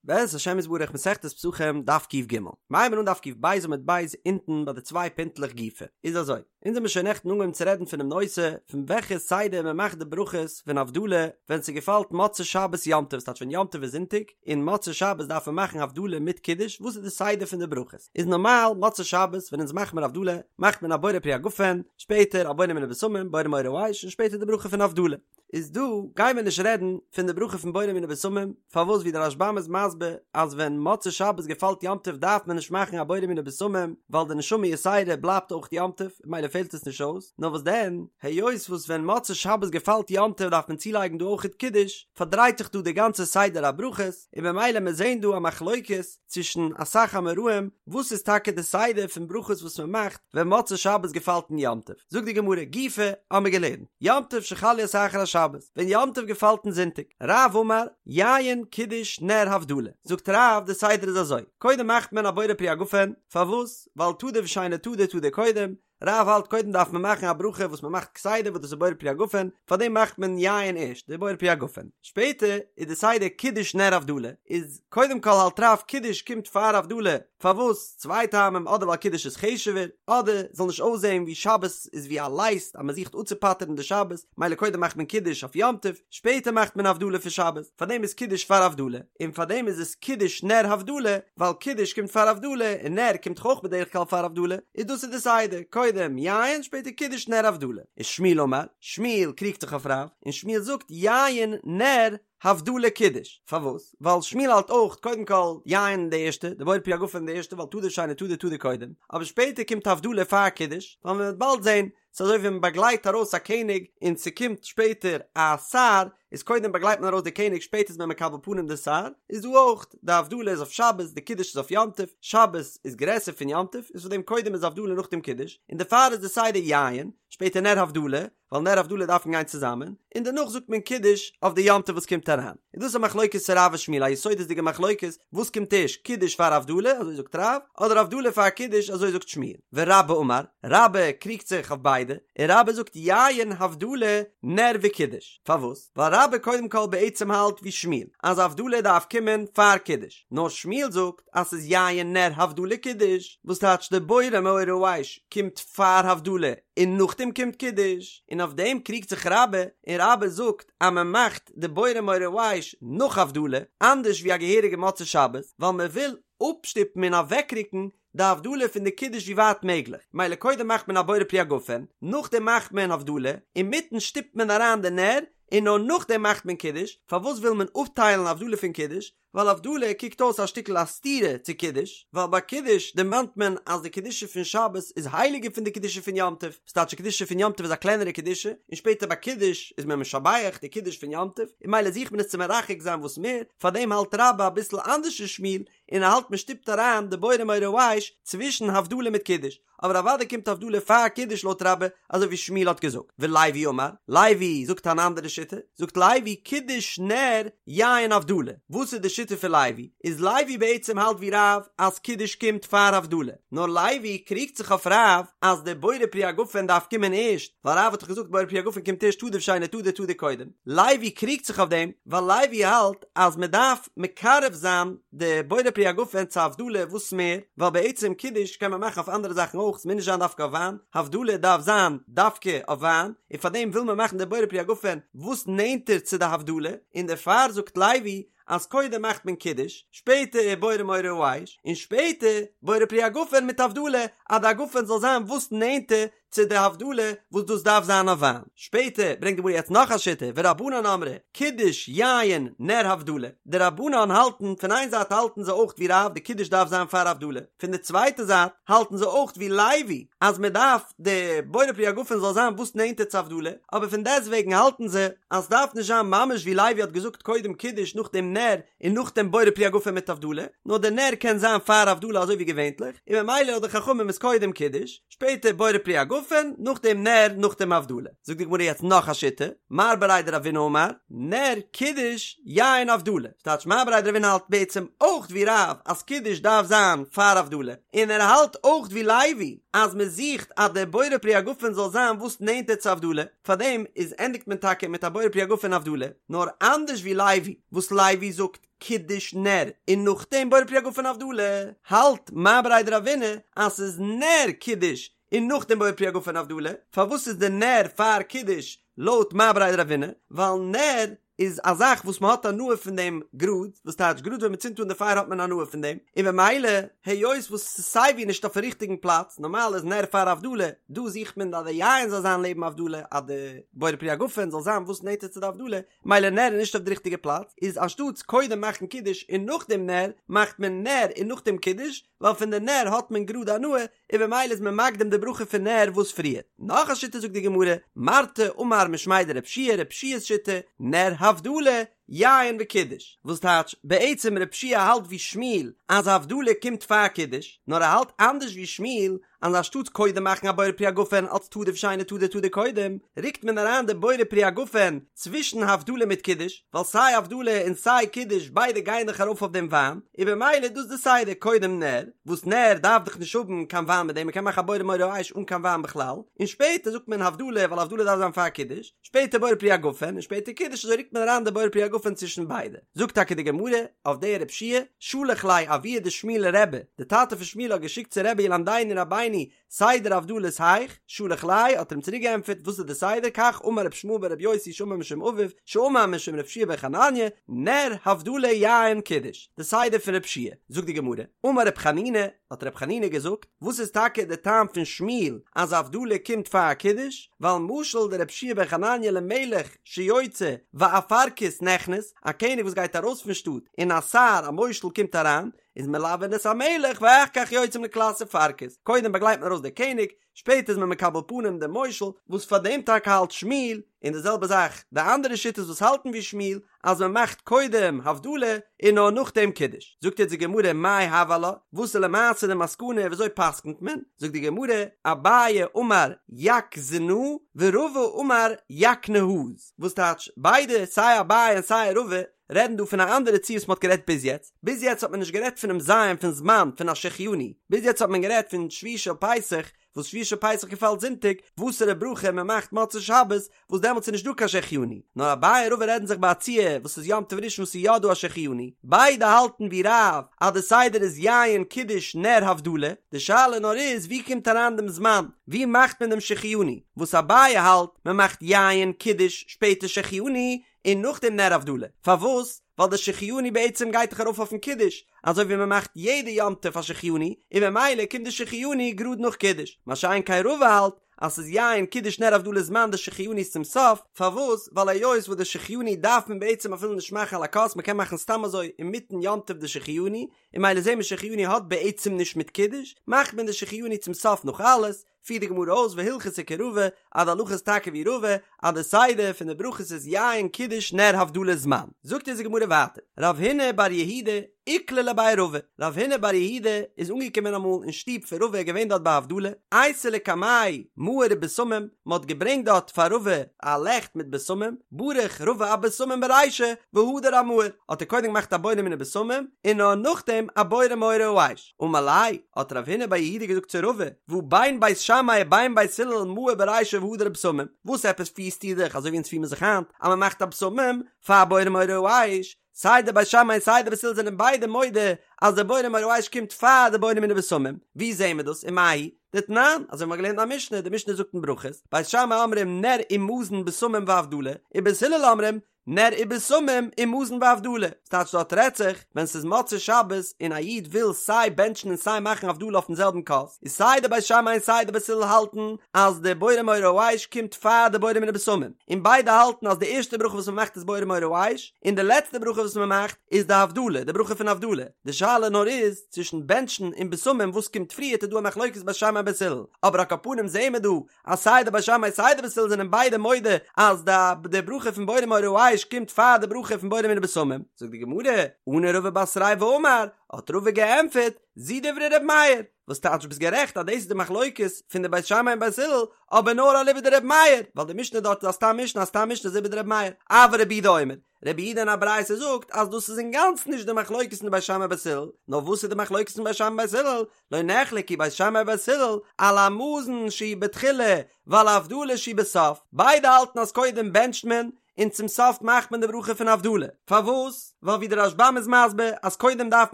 בעזרת השם יתברך מסכת פסחים דף ק"ג, מ'הייבן אן דף ק"ב עמוד ב' אונטן ביי די צוויי פינטלעך גופא, איז אזוי, אונז האמיר שוין נעכטן אנגעהויבן צו רעדן פונעם נושא פון וועלכע סדר מען מאכט די ברכות פון הבדלה ווען ס'געפאלט מוצאי שבת יום טוב, ס'טייטש ווען יום טוב איז זונטאג און מוצאי שבת דארף מען מאכן הבדלה מיט קידוש, וואס איז די סדר פון די ברכות? איז נארמאל מוצאי שבת ווען אונז מאכט מיר הבדלה מאכט מען א בורא פרי הגפן, שפעטער א בורא מיני בשמים, בורא מאורי האש, און שפעטער די ברכה פון הבדלה. איז דא גייען מיר נישט רעדן פון די ברכה פון בורא מיני בשמים, פארוואס ווי דער רשב"ם איז מסביר אז ווען מוצאי שבת געפאלט יום טוב דארף מען נישט מאכן א בורא מיני בשמים ווייל די נשמה יתירה בלייבט אויך יום טוב ממילא פעלט עס נישט אויס, נאר וואס דען היות וואס ווען מוצאי שבת געפאלט יום טוב דארף מען צולייגן דא אויכעט קידוש, פארדרייט זיך דא די גאנצע סדר הברכות, און במילא מיר זעהן דא א מחלוקת צווישן אסאך אמוראים וואס איז טאקע די סדר פון ברכות וואס מען מאכט ווען מוצאי שבת געפאלט אין יום טוב, זאגט די גמרא גופא האמיר געלערנט יום טוב שחל להיות אחר השבת, ווען יום טוב געפאלט אין זונטאג, רב אמר, יין קידוש נר הבדלה, זאגט רב די סדר איז אזוי, קודם מאכט מען א בורא פרי הגפן, פארוואס? ווייל תדיר ושאינו תדיר תדיר קודם, רב האלט קודם דארף מען מאכן א ברכה וואס מען מאכט כסדר וואס דאס איז בורא פרי הגפן, פארדעם מאכט מען יין ערשט, די בורא פרי הגפן. שפעטער איז די סדר קידוש נר הבדלה, איז קודם כל האלט רב קידוש קומט פאר הבדלה, פארוואס? צוויי טעמים אדער ווייל קידוש איז חשוב'ער, אדער זאל נישט אויסזען ווי שבת איז ווי א לייסט אז מען זוכט אפצופטר'ן די שבת, מילא קודם מאכט מען קידוש אויף יום טוב, שפעטער מאכט מען הבדלה פון שבת, פארדעם איז קידוש פאר הבדלה, און פארדעם איז עס קידוש נר הבדלה, ווייל קידוש קומט פאר הבדלה, און נר קומט דאך אויך בדרך כלל פאר הבדלה, איז דאס איז די סדר, קודם יין שפעטער קידוש נר הבדלה. ושמואל אמר, שמואל קריגט זיך אויף רב, און שמואל זאגט יין נר הבדלה קידוש, פארוואס? ווייל שמואל האלט אויך קודם כל יין די ערשטע, די בורא פרי הגפן די ערשטע ווייל תדיר ושאינו תדיר תדיר קודם, אבער שפעטער קומט הבדלה פאר קידוש, ווייל מען וועט באלד זען ס'איז אזוי ווי מען באגלייט ארויס א קעניג און ס'קומט שפעטער א שר, איז קודם באגלייט מען ארויס די קעניג שפעטער איז מען מקבל פנים די שר, איז דא אויך, די הבדלה איז אויף שבת, די קידוש איז אויף יום טוב, שבת איז גרעסער פון יום טוב, איז פאר דעם קודם איז הבדלה נאכדעם קידוש, און דערפאר איז די סדר יין, שפעטער נר הבדלה, ווייל נר הבדלה דארפן גיין צוזאמען, און דערנאך זאגט מען קידוש אויף די יום טוב וואס קומט אריין. איז דאס א מחלוקת צו רב ושמואל א יסודות'דיגע מחלוקת, וואס קומט ערשט, קידוש פאר הבדלה, אזוי זאגט רב, אדער הבדלה פאר קידוש, אזוי זאגט שמואל. ורבה אמר, רבה קריגט זיך אויף ביידע, און רבה זאגט יין הבדלה נר וקידוש. פארוואס? ווייל רבה קודם כל בעצם האלט ווי שמואל, אז הבדלה דארף קומען פאר קידוש, נאר שמואל זאגט אז ס'איז יין נר הבדלה קידוש, וואס טייטש די בורא מאורי האש קומט פאר הבדלה און נאכדעם קומט קידוש, און אויף דעם קריגט זיך רבה, און רבה זאגט אז מען מאכט די בורא מאורי האש נאך הבדלה, אנדערש ווי א געהעריגע מוצאי שבת, ווייל מען וויל אפשטופן און אוועקרוקן די הבדלה פון די קידוש ווי ווייט מעגליך, מילא קודם מאכט מען א בורא פרי הגפן, נאכדעם מאכט מען הבדלה, אינמיטן שטופט מען אריין די נר, און נאר נאכדעם מאכט מען קידוש, פארוואס וויל מען אפטיילן הבדלה פון קידוש? ווייל הבדלה קוקט אויס א שטיקל א סתירה צו קידוש, ווייל ביי קידוש דערמאנט מען אז די קדושה פון שבת איז הייליגער פון די קדושה פון יום טוב, ס'טייטש די קדושה פון יום טוב איז א קלענערע קדושה, און שפעטער ביי קידוש איז מען משבח די קידוש פון יום טוב, און מילא זוכט מען עס צו מרחק זיין וואס מער, פארדעם האלט רבה אביסל אנדערש פון שמואל, און ער האלט מען שטופט אריין די בורא מאורי האש צווישן הבדלה מיט קידוש, אבער אוודאי קומט הבדלה פאר קידוש לויט רבה אזוי ווי שמואל האט געזאגט, ולוי אמר, לוי זאגט אן אנדערע שיטה, זאגט לוי קידוש נר יין הבדלה, וואס איז די שיטה פון לוי? איז לוי בעצם האלט ווי רב אז קידוש קומט פאר הבדלה, נאר לוי קריגט זיך אויף רב אז די בורא פרי הגפן דארף קומען ערשט, ווייל רב האט דאך געזאגט בורא פרי הגפן קומט ערשט תדיר ושאינו תדיר תדיר קודם, לוי קריגט זיך אויף דעם ווייל לוי האלט אז מען דארף מקרב זיין די בורא פרי הגפן צו הבדלה וואס מער, ווייל בעצם קידוש קען מען מאכן אויף אנדערע זאכן אויך, ס'מוז נישט זיין דווקא אויף וויין, הבדלה דארף זיין דווקא אויף וויין, און פארדעם וויל מען מאכן די בורא פרי הגפן וואס נענטער צו די הבדלה, און דערפאר זאגט לוי אז קודם מאכט מען קידוש, שפעטער בורא מאורי האש, און שפעטער בורא פרי הגפן מיט הבדלה, אז די הגפן זאל זיין וואס נענטער צו די הבדלה וואס דאס דארף זיין אויף וויין. שפעטער ברענגט די גמרא יעצט נאך א שיטה, ורבנן אמרי, קידוש יין נר הבדלה, די רבנן האלטן, פון איין זייט האלטן זיי אויך ווי רב די קידוש דארף זיין פאר הבדלה, פון די צווייטע זייט האלטן זיי אויך ווי לוי אז מען דארף די בורא פרי הגפן זאל זיין וואס נענטער צו הבדלה, אבער פון דעסטוועגן האלטן זיי אז סדארף נישט זיין ממש ווי לוי האט געזאגט קודם קידוש נאכדעם נר און נאכדעם בורא פרי הגפן מיט הבדלה, נאר די נר קען זיין פאר הבדלה אזוי ווי געווענטליך, און ממילא לויט די חכמים איז קודם קידוש, שפעטער בורא פרי הגפן. הגפן, נאכדעם נר, נאכדעם הבדלה. זאגט די גמרא יעצט נאך א שיטה, מר בריה דרבינא אמר, נר קידוש יין הבדלה. ס'טייטש מר בריה דרבינא האלט בעצם אויך ווי רב אז קידוש דארף זיין פאר הבדלה, און ער האלט אויך ווי לוי אז מען זוכט אז דער בורא פרי הגפן זאל זיין וואס נענטער צו הבדלה, פארדעם איז ענדיגט מען טאקע מיט א בורא פרי הגפן הבדלה, נאר אנדערש ווי לוי וואס לוי זאגט קידוש נר און נאכדעם בורא פרי הגפן הבדלה, האלט מר בריה דרבינא אז ס'איז נר קידוש און נאכדעם בורא פרי הגפן הבדלה, פארוואס איז די נר פאר קידוש לויט מר בריה דרבינא? ווייל נר איז א זאך וואס מען האט הנאה פון דעם גראד, וואס טייטש גראד ווען מען צינדט אן די פייער האט מען הנאה פון דעם, און במילא היות וואס ס'איז סייווי נישט אויפן ריכטיגן פלאץ, נארמאל איז נר פאר הבדלה, דא זוכט מען אז די יין זאל זיין לעבן הבדלה, אז די בורא פרי הגפן זאל זיין וואס נענטער צו די הבדלה, מילא נר איז נישט אויף די ריכטיגע פלאץ, איז אנשטאטס קודם מאכן קידוש און נאכדעם נר, מאכט מען נר און נאכדעם קידוש, ווייל פון די נר האט מען גראד הנאה, און במילא איז מען מקדים די ברכה פון נר וואס פריער. נאך א שיטה זאגט די גמרא, מרתא אמר משמיה דרב יהושע, רב יהושע'ס שיטה, נר הבדלה, יין וקידוש. וואס טייטש, בעצם רב יהושע האלט ווי שמואל אז הבדלה קומט פאר קידוש, נאר ער האלט אנדערש ווי שמואל אז אנשטאטס קודם מאכן א בורא פרי הגפן אלץ תדיר ושאינו תדיר תדיר קודם, רוקט מען אריין די בורא פרי הגפן צווישן הבדלה מיט קידוש, ווייל סיי הבדלה און סיי קידוש ביידע גייען דאך ארויף אויף דעם וויין, און במילא איז דאס די סדר, קודם נר, וואס נר דארף דאך נישט האבן קיין וויין מיט דעם, מ'קען מאכן א בורא מאורי האש אן קיין וויין בכלל, און שפעטער זאגט מען הבדלה ווייל הבדלה דארף זיין פאר קידוש, שפעטער בורא פרי הגפן און שפעטער קידוש אזוי רוקט מען אריין די בורא פרי הגפן צווישן ביידע. זאגט טאקע די גמרא אויף די רב יהושע, שלח ליה אבוה דשמואל לרבי, די טאטע פון שמואל האט געשיקט צו רבי ילמדנו רבינו סדר הבדלות היאך, שלח ליה, האט ער אים צוריק געענטפערט, וואס איז די סדר, כך אמר רבי ישמעאל ברבי יוסי שאמר משום אביו, שאמר משום רבי יהושע בן חנניה, נר הבדלה יין קידוש, די סדר פון רב יהושע, זאגט די גמרא, אמר רב חנינא, האט רב חנינא געזאגט, וואס איז טאקע די טעם פון שמואל אז הבדלה קומט פאר קידוש, ווייל משל דרבי יהושע בן חנניה למלך שיוצא ואפרכוס נכנס, א קעניג וואס גייט ארויס פון שטאט און א שר א מושל קומט אריין, איז מלווין את המלך ואחר כך יוצאים לקלס אפרכוס, קודם באגלייט מען ארויס די קעניג, שפעטער איז מען מקבל פנים דעם מושל, וואס פאר דעם טאקע האלט שמואל, און די זעלבע זאך די אנדערע שיטות וואס האלטן ווי שמואל, אז מען מאכט קודם הבדלה און נאר נאכדעם קידוש. זאגט יעצט די גמרא מאי הוי עלה, וואס איז למעשה די מסקנא ווי אזוי פסק'נט מען, זאגט די גמרא, אביי אמר יקזנא ורבא אמר יקנה"ז, וואס טייטש ביידע סיי אביי און סיי רבא רעדן דא פון א אנדערע ציור וואס מען האט גערעדט ביז יעצט, ביז יעצט האט מען נישט גערעדט פונעם זיין פון זמן פון א שהחיינו, ביז יעצט האט מען גערעדט פון שביעי של פסח, וואס שביעי של פסח געפאלט זונטאג, וואסערע ברכה מען מאכט מוצאי שבת, וואס דעמאלטס איז נישט דא קיין שהחיינו, נאר אביי און רבא רעדן זיך ביי א ציור וואס איז יום טוב ראשון וואס איז יא דא א שהחיינו, ביידע האלטן ווי רב אז די סדר איז יין קידוש נר הבדלה, די שאלה נאר איז ווי קומט אריין דעם זמן, ווי מאכט מען דעם שהחיינו, וואס אביי האלט מען מאכט יין קידוש שפעטער שהחיינו, און נאכדעם נר הבדלה, פארוואס? ווייל די שהחיינו בעצם גייט דאך ארויף אויפן קידוש, אזוי ווי מען מאכט יעדע יום טוב א שהחיינו, און ממילא קומט די שהחיינו גראד נאך קידוש, מה שאין כן רבא האלט אז ס'איז יין קידוש נר הבדלה זמן די שהחיינו איז צום סוף, פארוואס? ווייל היות וואס די שהחיינו דארף מען בעצם אפילו נישט מאכן על הכוס, מען קען מאכן סתם אזוי אינמיטן יום טוב די שהחיינו, און ממילא זעהן מיר שהחיינו האט בעצם נישט מיט קידוש, מאכט מען די שהחיינו צום סוף נאך אלעס, פירט די גמרא אויס והלכתא כרבא, אז די הלכה איז טאקע ווי רבא, אז די סדר פון די ברכות איז יין קידוש נר הבדלה זמן. זאגט אונז די גמרא ווייטער, רב הונא בר יהודה איקלע לבי רבא, רב הונא בר יהודה איז אנגעקומען אמאל אין שטוב פון רבא געווען דארט ביי הבדלה, אייתו לקמיה מאור ובשמים, מען האט געברענגט דארט פאר רבא א לעכט מיט בשמים, ברך רבא אבשמים ברישא והדר אמאור, האט ער קודם געמאכט א בורא מיני בשמים, און נאר נאכדעם א בורא מאורי האש. אמר ליה, האט רב הונא בר יהודה געזאגט צו רבא, והא בין בית שמאי ובין בית הלל מאור ברישא והדר בשמים, וואס עפעס פירסטו דיך אזוי ווי אונז פיר מיר זיך היינט אז מען מאכט א בשמים פאר בורא מאורי האש, סיי די בית שמאי און סיי די בית הלל זענען ביידע מודה אז די בורא מאורי האש קומט פאר די בורא מיני בשמים, ווי זעהן מיר דאס ומאי היא? דתנן, אזוי ווי מ'האט געלערנט אין א משנה, די משנה זאגט אין ברכות, בית שמאי אומרים נר ומזון בשמים והבדלה, ובית הלל אומרים נר ובשמים ומזון והבדלה, ס'טייטש דארט רעדט זיך ווען ס'איז מוצאי שבת און א איד וויל סיי בענטשן און סיי מאכן הבדלה אויפן זעלבן כוס, איז סיי די בית שמאי און סיי די בית הלל האלטן אז די בורא מאורי האש קומט פאר די בורא מיני בשמים, און ביידע האלטן אז די ערשטע ברכה וואס מ'מאכט איז בורא מאורי האש, און די לעצטע ברכה וואס מ'מאכט איז די הבדלה, די ברכה פון הבדלה, די שאלה נאר איז צווישן בענטשן און בשמים וואס קומט פריערט איז דא א מחלוקת בית שמאי און בית הלל, אבער על כל פנים זעהן מיר דא אז סיי די בית שמאי סיי די בית הלל זענען ביידע מודה אז די די ברכה פון בורא מאורי האש קומט פאר די ברכה פון בורא מיני בשמים, זאגט די גמרא, עני רבא בתריה ואמר, האט רבא געענטפערט, זו דברי ר' מאיר, וואס טייטש ביסט גערעכט אז דאס איז די מחלוקת פון די בית שמאי און בית הלל, אבער נאר אליבא דרבי מאיר, ווייל די משנה דארט איז א סתם משנה, א סתם משנה איז אליבא דרבי מאיר, אבל רבי יהודה אומר, רבי יהודה אין א ברייתא זאגט אז דאס איז אינגאנצן נישט די מחלוקת פון די בית שמאי בית הלל, נאר וואס איז די מחלוקת פון בית שמאי בית הלל? לא נחלקו בית שמאי ובית הלל על המזון שהוא בתחילה ועל הבדלה שהיא בסוף, ביידע האלטן אז קודם בענטשט מען און צום סוף מאכט מען די ברכה פון הבדלה, פארוואס? ווייל ווי די רשב"ם איז מסביר אז קודם דארף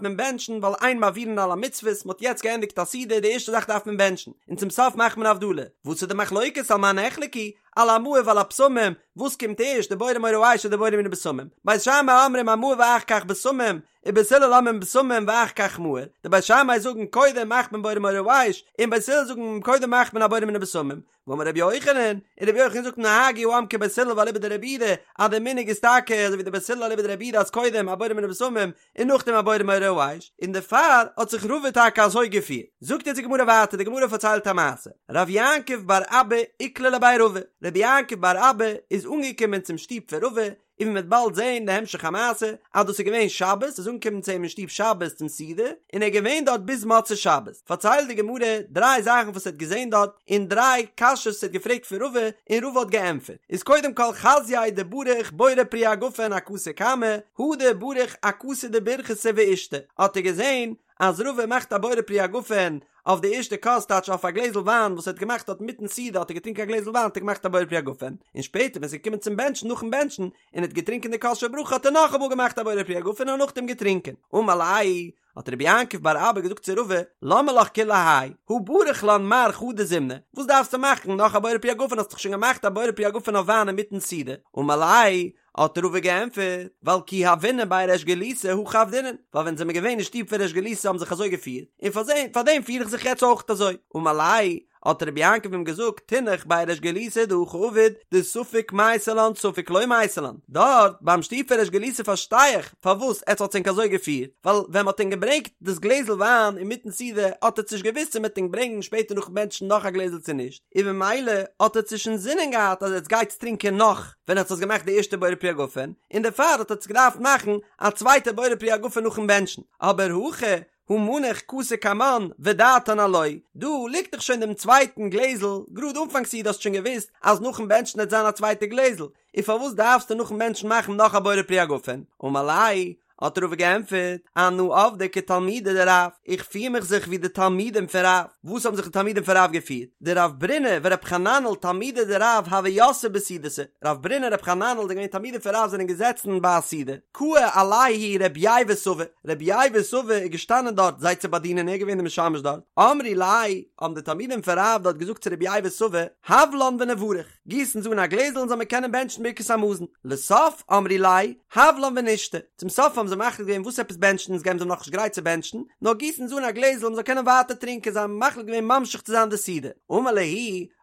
מען בענטשן ווייל אין מעבירין על המצוות, מען האט יעצט געענדיגט א סעודה די ערשטע זאך דארף מען בענטשן, און צום סוף מאכט מען הבדלה, וואס איז די מחלוקת על מה נחלקו? על המאור ועל הבשמים, וואס קומט ערשט די בורא מאורי האש אדער די בורא מיני בשמים? בית שמאי אומרים המאור ואחר כך בשמים, ובית הלל אומרים בשמים ואחר כך מאור, די בית שמאי זאגן קודם מאכט מען בורא מאורי האש, און בית הלל זאגן קודם מאכט מען א בורא מיני בשמים, ואמר רבי יוחנן, און רבי יוחנן זאגט נהגו העם כבית הלל ואליבא דרבי יהודה, אז די מנהג איז טאקע אזוי ווי די בית הלל אליבא דרבי יהודה אז קודם א בורא מיני בשמים און נאכדעם א בורא מאורי האש, און דערפאר האט זיך רבא טאקע אזוי געפירט. זאגט יעצט די גמרא ווייטער, די גמרא פארציילט א מעשה, רב יעקב בר אבא איקלע לבי רבא, רבי יעקב בר אבא איז אנגעקומען צום שטוב פון רבא, און ווי מ'וועט באלד זעהן די המשך המעשה, אז דאס איז געווען שבת, איז אנגעקומען צו אים אין שטוב שבת צום סעודה, און ער איז געווען דארט ביז מוצאי שבת. פארציילט די גמרא דריי זאכן וואס ער האט געזעהן דארט, און דריי קשיות וואס ער האט געפרעגט פון רבא, און רבא האט געענטפערט. איז קודם כל חזייה דבריך בורא פרי הגפן אכסא קמא, הדר בריך אכסא דברכתא ואישתי, האט ער געזעהן אז רבא מאכט א בורא פרי הגפן אויף די ערשטע כוס טייטש אויף א גלעזל וויין וואס ער האט געמאכט דארט מיטן סעודה האט ער געטרינקען א גלעזל וויין האט ער געמאכט א בורא פרי הגפן און שפעטער ווען ס'איז געקומען צום בענטשן נאכן בענטשן און ער האט געטרינקען די כוס של ברכה האט ער נאכאמאל געמאכט א בורא פרי הגפן און נאכדעם געטרינקען אמר ליה האט רבי יעקב בר אבא געזאגט צו רבא למה לך כולי האי הא בריך לן מר חדא זימנא וואס דארפסטו מאכן נאך א בורא פרי הגפן האסט דאך שוין געמאכט א בורא פרי הגפן אויף וויין אינמיטן סעודה אמר ליה האט רבא געענטפערט, ווייל כי הוינן בי ריש גלותא הכי עבדינן, ווייל ווען זעמער געווען אין שטוב פון ריש גלותא האבן זיך אזוי געפירט, און פאר דעם פיר איך זיך יעצט אויך אזוי. אמר ליה, האט רבי יעקב אים געזאגט, תינח בי ריש גלותא דהכי עביד, דספק מייתי לן ספק לא מייתי לן, דארט ביים שטוב פון ריש גלותא פארשטיי איך פארוואס עטס האטס ענק אזוי געפירט, ווייל ווען מ'האט ענק געברענגט דאס גלעזל וויין אינמיטן סעודה האט עטס נישט געוואוסט צו מ'וועט ענק ברענגן שפעטער נאכן בענטשן נאך א גלעזל צו נישט, און במילא האט עטס נישט אינזינען געהאט אז עטס גייטס טרינקען נאך ווען עטס האטס געמאכט די ערשטע בורא פרי הגפן, און דערפאר האט עטס געדארפט מאכן א צווייטע בורא פרי הגפן נאכן בענטשן, אבער הכא הא מנח כסא קמן ודעתן עילואי, דא ליגט דאך שוין דעם צווייטן גלעזל, גראד אנפאנג סעודה האסט שוין געוואוסט אז נאכן בענטשן עט זיין א צווייטע גלעזל, און פארוואס דארפסטו נאכן בענטשן מאכן נאך א בורא פרי הגפן? אמר ליה, האט רבא געענטפערט, אנא עבדי כתלמידי דרב, איך פיר מיך זיך ווי די תלמידים פון רב, וואס האבן זיך די תלמידים פון רב געפירט? דרב ברונא ורב חננאל תלמידי דרב הוו יתבי בסעודתא, רב ברונא און רב חננאל זענען געווען תלמידים פון רב זענען געזעצן ביי א סעודה, קאי עלייהו רבי ייבא סבא, רבי ייבא סבא איז געשטאנען דארט זיי צו באדינען ער איז געווען די משמש דארט, אמרי ליה, האבן די תלמידים פון רב דארט געזאגט צו רבי ייבא סבא, הב לן ונברך. גיס אונז אן א גלעזל און זאל מען קענען בענטשן ברכת המזון. לסוף אמרי ליה, הב לן ונשתי. צום סוף האבן זיי מחליט געווען וואס עפעס בענטשן אונז געבן זיי נאכנישט גרייט צו בענטשן, נאר גיס אונז אן א גלעזל מ'זאל קענען ווייטער טרינקען זיי האבן מחליט געווען ממשיך צו זיין די סעודה. אמר להו,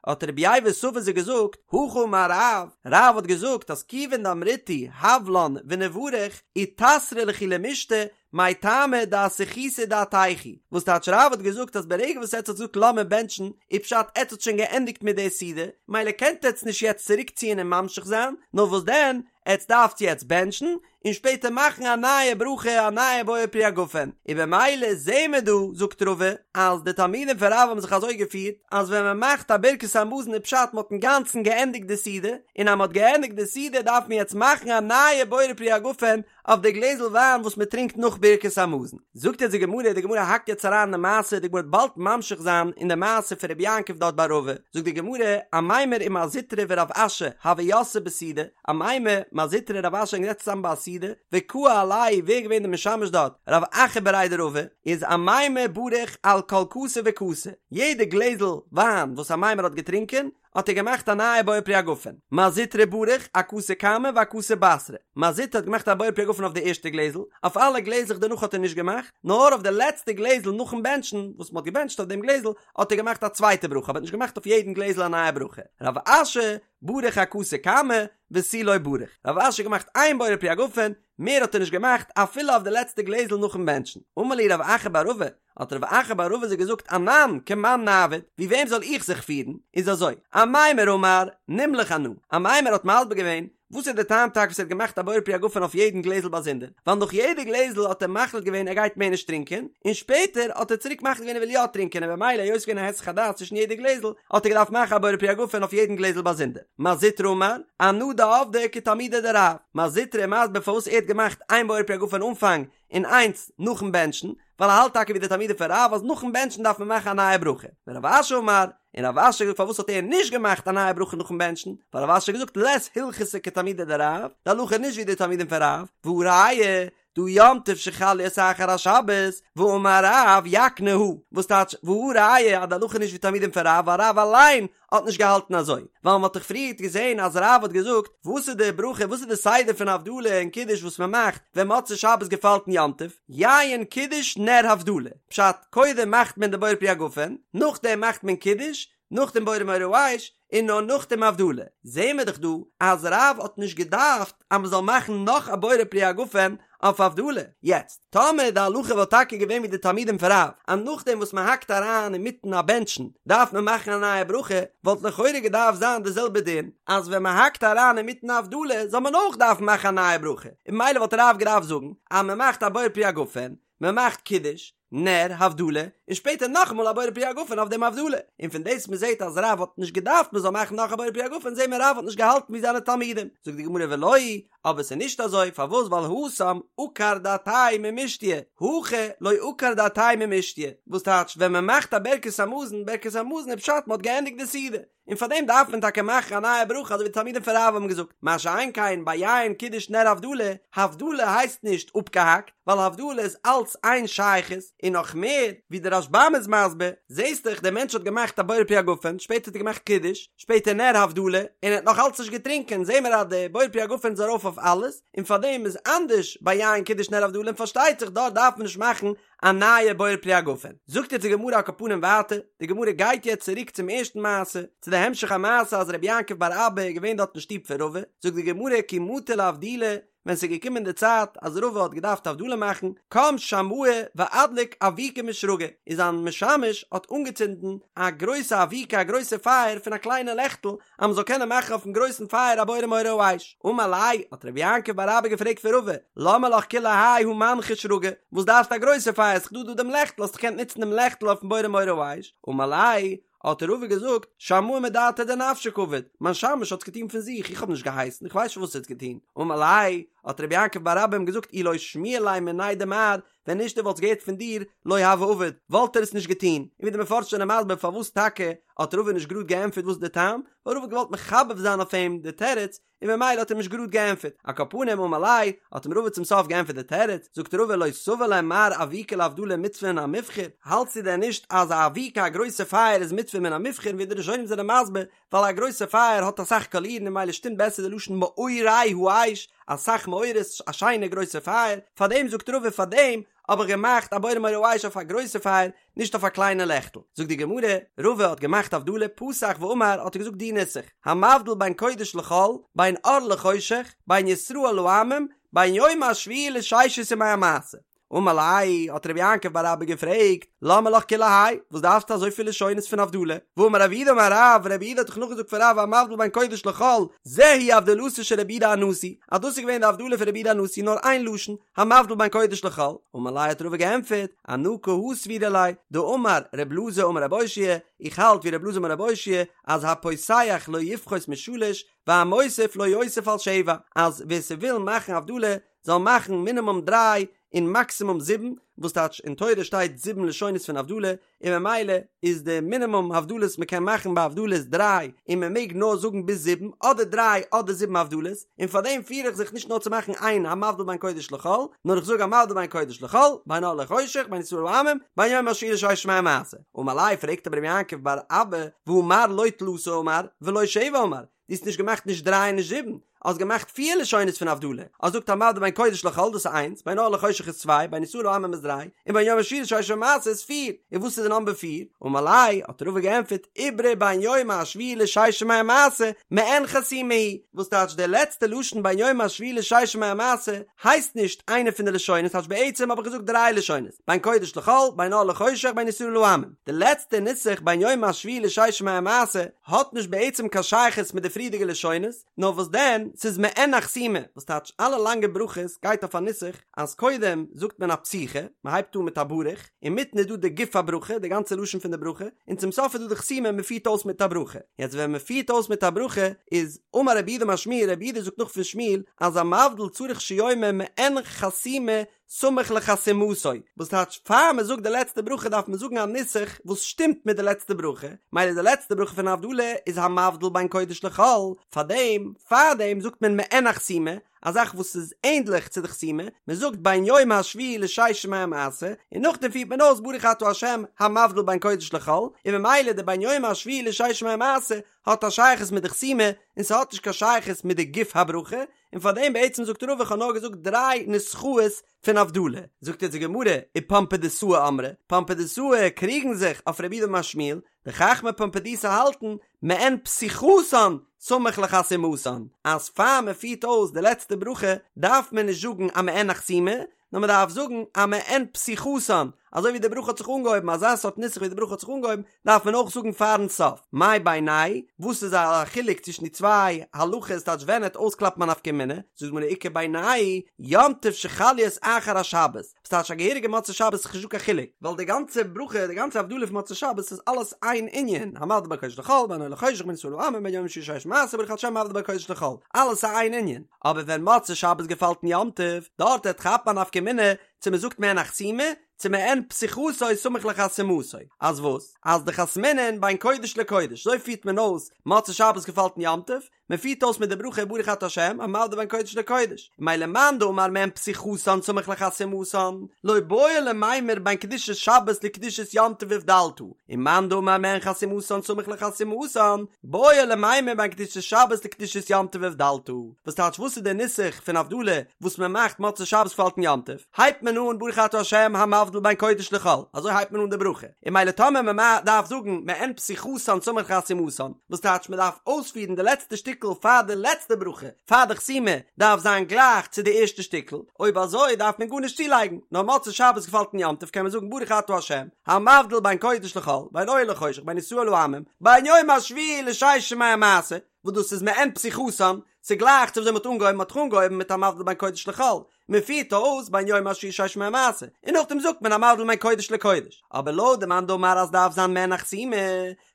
האט רבי ייבא סבא זיי געזאגט, הכי אמר רב, רב האט געזאגט אז כיוון דאמריתו הב לן ונברך, איתסרא לכו למישתי, מאי טעמא דאסחיתו דעתייכו, וואס טייטש רב האט געזאגט אז ברגע וואס עטץ האט געזאגט לאמיר בענטשן, איז פשט עטץ האט שוין געענדיגט מיט די סעודה, מילא קענט עטץ נישט יעצט צוריק ציען און ממשיך זיין, נאר וואס דען, עטץ דארפטס יעצט בענטשן, און שפעטער מאכן א נייע ברכה א נייע בורא פרי הגפן, און במילא זעהן מיר דא, זאגט רבא, אז די תלמידים פון רב האבן זיך אזוי געפירט, אז ווען מען מאכט א ברכת המזון איז פשט מען האט אינגאנצן געענדיגט די סעודה, און אז מען האט געענדיגט די סעודה דארף מען יעצט מאכן א נייע בורא פרי הגפן, אויף די גלעזל וויין וואס מען טרינקט נאך ברכת המזון. זאגט יעצט די גמרא, די גמרא האקט יעצט אריין אין די מעשה, די גמרא וועט באלד ממשיך זיין אין די מעשה פון רבי יעקב דארט ביי רבא, זאגט די גמרא, אמימר ומר זוטרא ורב אשי הוו יתבי בסעודה, אמימר, מר זוטרא און רב אשי זענען געזעצן צוזאמען ביי א סעודה, וקאי עלייהו, ווער איז געווען די משמש דארט? רב אחא בריה דרבא, איז אמימר בריך על כל כסא וכסא, יעדע גלעזל וויין וואס אמימר האט געטרינקען, האט ער געמאכט א נייע בורא פרי הגפן, מר זוטרא בריך אכסא קמא ואכסא בתרא, מר זוטרא האט געמאכט א בורא פרי הגפן אויף די ערשטע גלעזל, אויף אלע גלעזלעך דערנאך האט ער נישט געמאכט, נאר אויף די לעצטע גלעזל נאכן בענטשן, וואס מען האט געבענטשט אויף דעם גלעזל, האט ער געמאכט א צווייטע ברכה, אבער האט נישט געמאכט אויף יעדן גלעזל א נייע ברכה. רב אשי בריך אכסא קמא ותו לא בריך, רב אשי האט געמאכט איין בורא פרי הגפן, מער האט ער נישט געמאכט אפילו אויף די לעצטע גלעזל נאכן בענטשן. אמר להו רב אחא בר רבא, האט רב אחא בר רבא זיי געזאגט אנן כמאן נעביד, ווי וועם זאל איך זיך פירן? איז אזוי, אמימר אמר, נמלך אנא, אמימר האט מסביר געווען, וואס איז די טעם טאקע וואס ער האט געמאכט א בורא פרי הגפן אויף יעדן גלעזל באזונדער? ווייל נאך יעדע גלעזל האט ער מחליט געווען ער גייט מער נישט טרינקען, און שפעטער האט ער צוריק מחליט געווען ער וויל יא טרינקען און במילא היות ס'געווען א היסח הדעת צווישן יעדע גלעזל האט ער געדארפט מאכן א בורא פרי הגפן אויף יעדן גלעזל באזונדער. מר זוטרא אמר, אנא דעבדי כתלמידי דרב. מר זוטרא איז מסביר פארוואס ער האט געמאכט איין בורא פרי הגפן אנפאנג און איינס נאכן בענטשן, ווייל ער האלט טאקע ווי די תלמידים פון רב אז נאכן בענטשן דארף מען מאכן א נייע ברכה. ורב אשי אמר, און רב אשי האט געזאגט פארוואס האט ער נישט געמאכט א נייע ברכה נאכן בענטשן, ווייל רב אשי האט געזאגט לית הלכתא כתלמידי דרב, די הלכה איז נישט ווי די תלמידים פון רב, והא ראיה, דהא יום טוב שחל להיות אחר השבת, ואמר רב יקנה הא, וואס טייטש והא ראיה אז די הלכה איז נישט ווי תלמידים פון רב ווייל רב אליין האט נישט געהאלטן אזוי, ווייל מ'האט דאך פריערט געזען אז רב האט געזאגט, וואס איז די ברכה, וואס איז די סדר פון הבדלה און קידוש וואס מ'מאכט ווען מוצאי שבת געפאלט אין יום טוב, יין קידוש נר הבדלה, פשט, קודם מאכט מען די בורא פרי הגפן, נאכדעם מאכט מען קידוש, נאכדעם בורא מאורי האש, און נאר נאכדעם הבדלה. זעהן מיר דאך דא אז רב האט נישט געדארפט אז מ'זאל מאכן נאך א בורא פרי הגפן אויף הבדלה. יעצט, טאמער די הלכה וואלט טאקע געווען ווי די תלמידים פון רב, אז נאכדעם וואס מ'האקט אריין אינמיטן א בענטשן דארף מען מאכן א נייע ברכה, וואלט לכאורה געדארפט זיין די זעלבע דין, אז ווען מ'האקט אריין אינמיטן הבדלה זאל מען אויך דארפן מאכן א נייע ברכה, און ממילא וואלט רב געדארפט זאגן אז מ'מאכט א בורא פרי הגפן, מ'מאכט קידוש, נר, הבדלה, און שפעטער נאכאמאל א בורא פרי הגפן אויף דעם הבדלה, און פון דאס מ'זעט אז רב האט נישט געדארפט מ'זאל מאכן נאך א בורא פרי הגפן זעהן מיר רב האט נישט געהאלטן ווי זיינע תלמידים, זאגט די גמרא ולא היא, אבער ס'איז נישט אזוי, פארוואס ווייל התם עקר דעתיה ממישתיא, הכא לא עקר דעתיה ממישתיא, וואס טייטש ווען מ'מאכט א ברכת המזון, ברכת המזון איז פשט מ'האט געענדיגט די סעודה, און פאר דעם דארף מען טאקע מאכן א נייע ברכה אזוי ווי די תלמידים פון רב האבן געזאגט, מה שאין כן ביי יין קידוש נר הבדלה, הבדלה הייסט נישט אפגעהאקט, ווייל הבדלה איז אלץ איין שייכות, און נאך מער, ווי דער רשב"ם איז מסביר, זעסט דאך דער מענטש האט געמאכט א בורא פרי הגפן, שפעטער האט ער געמאכט קידוש, שפעטער נר הבדלה, און ער האט נאך אלץ נישט געטרינקען, זעהן מיר אז די בורא פרי הגפן איז ארויף אויף אלעס, און פאר דעם איז אנדערש ביי יין קידוש נר הבדלה און פארשטייט זיך דארט דארף מען נישט מאכן א נייע בורא פרי הגפן. זאגט יעצט די גמרא על כל פנים ווייטער, די גמרא גייט יעצט צוריק צום ערשטן מעשה, צו די המשך המעשה אז רבי יעקב בר אבא איז געווען דארט אין שטוב פון רבא, זאגט די גמרא כי מטא לאבדולי, ווען ס'איז געקומען די צייט אז רבא האט געדארפט הבדלה מאכן, קם שמעיה ואדליק אבוקה משרגא, איז זיין משמש האט אנגעצינדן א גרויסע אבוקה א גרויסע פייער פון א קליינע לעכטל, אז מ'זאל קענען מאכן אויפן גרויסן פייער א בורא מאורי האש. אמר ליה, האט רבי יעקב בר אבא געפרעגט פון רבא, למה לך כולי האי הא מנחא שרגא, וואס דארפסטו א גרויסע פייער, ס'איז דא דא דעם לעכטל, האסט דאך געקענט נוצן דעם לעכטל אויפן בורא מאורי האש. אמר ליה, האט רבא געזאגט, שמעיה מדעתיה דנפשיה קעביד, מיין שמש האט עס געטון פון זיך, איך האב נישט געהייסן, איך ווייס נישט וואס ער האט געטון. אמר ליה, האט רבי יעקב בר אבא אים געזאגט, אי לא שמיע ליה מיניה דמר, ווען נישט ער וואלט עס געהערט פון דיר, לא הוה עביד, וואלט ער עס נישט געטון. און ווי די מפרשים זענען מסביר פארוואס טאקע האט רבא נישט גראד געענטפערט וואס איז די טעם, ווייל רבא האט געוואלט מחבב זיין אויף אים די תירוץ, און ממילא האט ער נישט גראד געענטפערט. על כל פנים אמר ליה, האט אים רבא צום סוף געענטפערט די תירוץ, זאגט רבא לא סבר לה מר אבוקה להבדלה מצוה מן המובחר, האלטסטו דען נישט אז א אבוקה א גרויסע פייער איז מצוה מן המובחר, ווי די ראשונים זענען מסביר, ווייל א גרויסע פייער האט אסאך קאלירן און ממילא שטימט בעסער די לשון מאורי האש, אסאך מאורות, א שיינע גרויסע פייער, פארדעם זאגט רבא פארדעם האב איך געמאכט א בורא מאורי האש אויף א גרויסע פייער, נישט אויף א קליינע לעכטל. זאגט די גמרא, רבא האט געמאכט הבדלה, פתח ואמר האט ער געזאגט די נוסח, המבדיל בין קודש לחול, בין אור לחושך, בין ישראל לעמים, בין יום השביעי לששת ימי המעשה. אמר ליה, האט רבי יעקב בר אבא געפרעגט, למה לך כולי האי, וואס דארפסטו אזויפיל לשונות פון הבדלה? והאמר רב יהודה אמר רב, רב יהודה האט דאך נאכגעזאגט פון רב המבדיל בין קודש לחול, זו היא הבדלתו של רבי יהודה הנשיא, אז דאס איז געווען די הבדלה פון רבי יהודה הנשיא נאר איין לשון, המבדיל בין קודש לחול, אמר ליה האט רבא געענטפערט, אנא כי הא סבירא לי, דאמר ר' אלעזר אמר רבי אושעיא, איך האלט ווי ר' אלעזר אמר רבי אושעיא, אז הפותח לא יפחות משלש, והמוסיף לא יוסיף על שבע, אז ווער ס'וויל מאכן הבדלה זאל מאכן מינימום דריי און מאקסימום זיבן, וואס טייטש אין תורה שטייט זיבן לשונות פון הבדלה, און ממילא איז די מינימום הבדלות מען קען מאכן ביי הבדלה איז דריי, און מען מעג נאר זאגן ביז זיבן, אדער דריי אדער זיבן הבדלות, און פאר דעם פיר איך זיך נישט נאר צו מאכן איין המבדיל בין קודש לחול, נאר איך זאג המבדיל בין קודש לחול, בין אור לחושך, בין ישראל לעמים, בין יום השביעי לששת ימי המעשה. אמר ליה פרעגט אבער רבי יעקב בר אבא, והא מר לא תלתא אמר, ולא שבע אמר, דו האסט נישט געמאכט נישט דריי און נישט זיבן, האסט געמאכט פיר לשונות פון הבדלה, האסט געזאגט המבדיל בין קודש לחול דאס איז איינס, בין אור לחושך איז צוויי, בין ישראל לעמים איז דריי, און בין יום השביעי לששת ימי המעשה איז פיר, און וואס איז די נאמבער פיר? אמר ליה, האט רבא געענטפערט, איברא בין יום השביעי לששת ימי המעשה, מעין חתימה היא, וואס טייטש די לעצטע לשון בין יום השביעי לששת ימי המעשה הייסט נישט איינע פון די לשונות, טייטש בעצם האב איך געזאגט דריי לשונות, בין קודש לחול, בין אור לחושך, בין ישראל לעמים. די לעצטע נוסח בין יום השביעי לששת ימי המעשה האט נישט בעצם קיין שייכות מיט די פריערדיגע לשונות, נאר וואס דען, ס'איז מעין א חתימה, וואס טייטש אלע לאנגע ברכות גייט אויף א נוסח אז קודם זאגט מען א פתיחה, מען הייבט אן מיט א ברוך, אינמיטן איז דא די גוף הברכה, די גאנצע לשון פון די ברכה, און צום סוף איז דא די חתימה, מען פירט אויס מיט א ברכה. יעצט ווען מען פירט אויס מיט א ברכה איז אמר רב יהודה אמר שמואל, רב יהודה זאגט נאך פון שמואל, אז המבדיל צריך שיאמר מעין חתימה סמוך לחתימתו, וואס טייטש פאר מען זאגט די לעצטע ברכה דארף מען זאגן א נוסח וואס שטימט מיט די לעצטע ברכה, מילא די לעצטע ברכה פון הבדלה איז המבדיל בין קודש לחול, פארדעם פארדעם זאגט מען מעין החתימה, א זאך וואס איז ענדליך צו די חתימה, מען זאגט בין יום השביעי לששת ימי המעשה, און נאכדעם פירט מען אויס ברוך אתה ה' המבדיל בין קודש לחול, און ממילא די בין יום השביעי לששת ימי המעשה האט א שייכות מיט די חתימה, און ס'האט נישט קיין שייכות מיט די גוף הברכה, און פאר דעם בעצם זאגט רבא איך האב נאר געזאגט דריי נוסחאות פון הבדלה, זאגט יעצט די גמרא ופומבדיתאי אמרי, פומבדיתאי קריגן זיך אויף רב יהודה אמר שמואל, די חכמי פומבדיתא האלטן מעין פתיחתן סמוך לחתימתן, אז פאר מען פירט אויס די לעצטע ברכה דארף מען נישט זאגן א מעין החתימה, נאר מען דארף זאגן א מעין פתיחתן, אזוי ווי די ברכה האט זיך אנגעהויבן, אזא סארט נוסח ווי די ברכה האט זיך אנגעהויבן, דארף מען אויך זאגן פארן סוף. מאי בינייהו וואס איז א חילוק צווישן די צוויי הלכות טייטש ווען עט אויסקלאפן א נפקא מינה, זאגט די גמרא איכא בינייהו יום טוב שחל להיות אחר השבת, וואס טייטש א געהעריגע מוצאי שבת איז נישטא קיין חילוק, ווייל די גאנצע ברכה די גאנצע הבדלה פון מוצאי שבת איז אלעס איין ענין, המבדיל בין קודש לחול, בין אור לחושך בין ישראל לעמים בין יום השביעי לששת ימי המעשה ברוך אתה השם המבדיל בין קודש לחול, אלעס איז איין ענין. אבער ווען מוצאי שבת געפאלט אין יום טוב, דארט עט כאפן א נפקא מינה צו מען זאגט מעין החתימה, צו מעין פתיחתו סמוך לחתימתו, אז וואס? אז דחתמינן בין קודש לקודש, אזוי פירט מען אויס מוצאי שבת געפאלט אין יום טוב, מען פירט אויס מיט די ברכה ברוך אתה ה' המבדיל בין קודש לקודש, ממילא מאן דאמר מעין פתיחתן סמוך לחתימתן, לא בעי למימר בין קדושת שבת לקדושת יום טוב הבדלת, און מאן דאמר מעין חתימתן סמוך לחתימתן, בעי למימר בין קדושת שבת לקדושת יום טוב הבדלת, וואס טייטש וואס איז דער נוסח פון הבדלה וואס מען מאכט מוצאי שבת געפאלט אין יום טוב, הייבט מען אן ברוך אתה ה' המבדיל בין קודש לחול, אזוי הייבט מען אן די ברכה, און מילא טאמער מען דארף זאגן מעין פתיחתן סמוך לחתימתן, וואס טייטש מען דארף אויספירן די לעצטע שטיקל פאר די לעצטע ברכה, פאר די חתימה דארף זיין גלייך צו די ערשטע שטיקל, אויב אזוי דארף מען גארנישט צולייגן, נאר מוצאי שבת געפאלט אין יום טוב קען מען זאגן ברוך אתה ה' המבדיל בין קודש לחול, בין אור לחושך, בין ישראל לעמים, בין יום השביעי לששת ימי המעשה, וואס דאס איז מעין פתיחתן, ס'גלייך צו וויאזוי מ'האט אנגעהויבן, מ'האט דאך אנגעהויבן מיט המבדיל בין קודש לחול, מ'פירט אויס בין יום השביעי לששת ימי המעשה, און נאכדעם זאגט מען המבדיל בין קודש לקודש. אבער לויט די מאן דאמר אז דארף זיין מעין החתימה,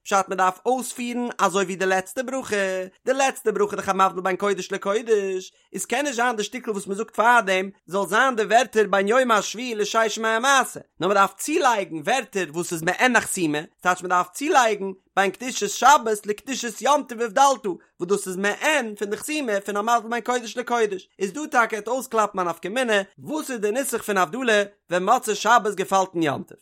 פשט מ'דארף אויספירן אזוי ווי די לעצטע ברכה, די לעצטע ברכה איז דאך המבדיל בין קודש לקודש, איז קען נישט זיין די שטיקל וואס מ'זאגט פארדעם זאל זיין די ווערטער בין יום השביעי לששת ימי המעשה, נאר מ'דארף צולייגן ווערטער וואס איז מעין החתימה, ס'טייטש מ'דארף צולייגן בין קדושת שבת לקדושת יום טוב הבדלת, וואס דאס איז מעין פון די חתימה פון המבדיל בין קודש לקודש, איז דא טאקע עט אויסקלאפן א נפקא מינה וואס איז די נוסח פון הבדלה ווען מוצאי שבת געפאלט אין יום טוב.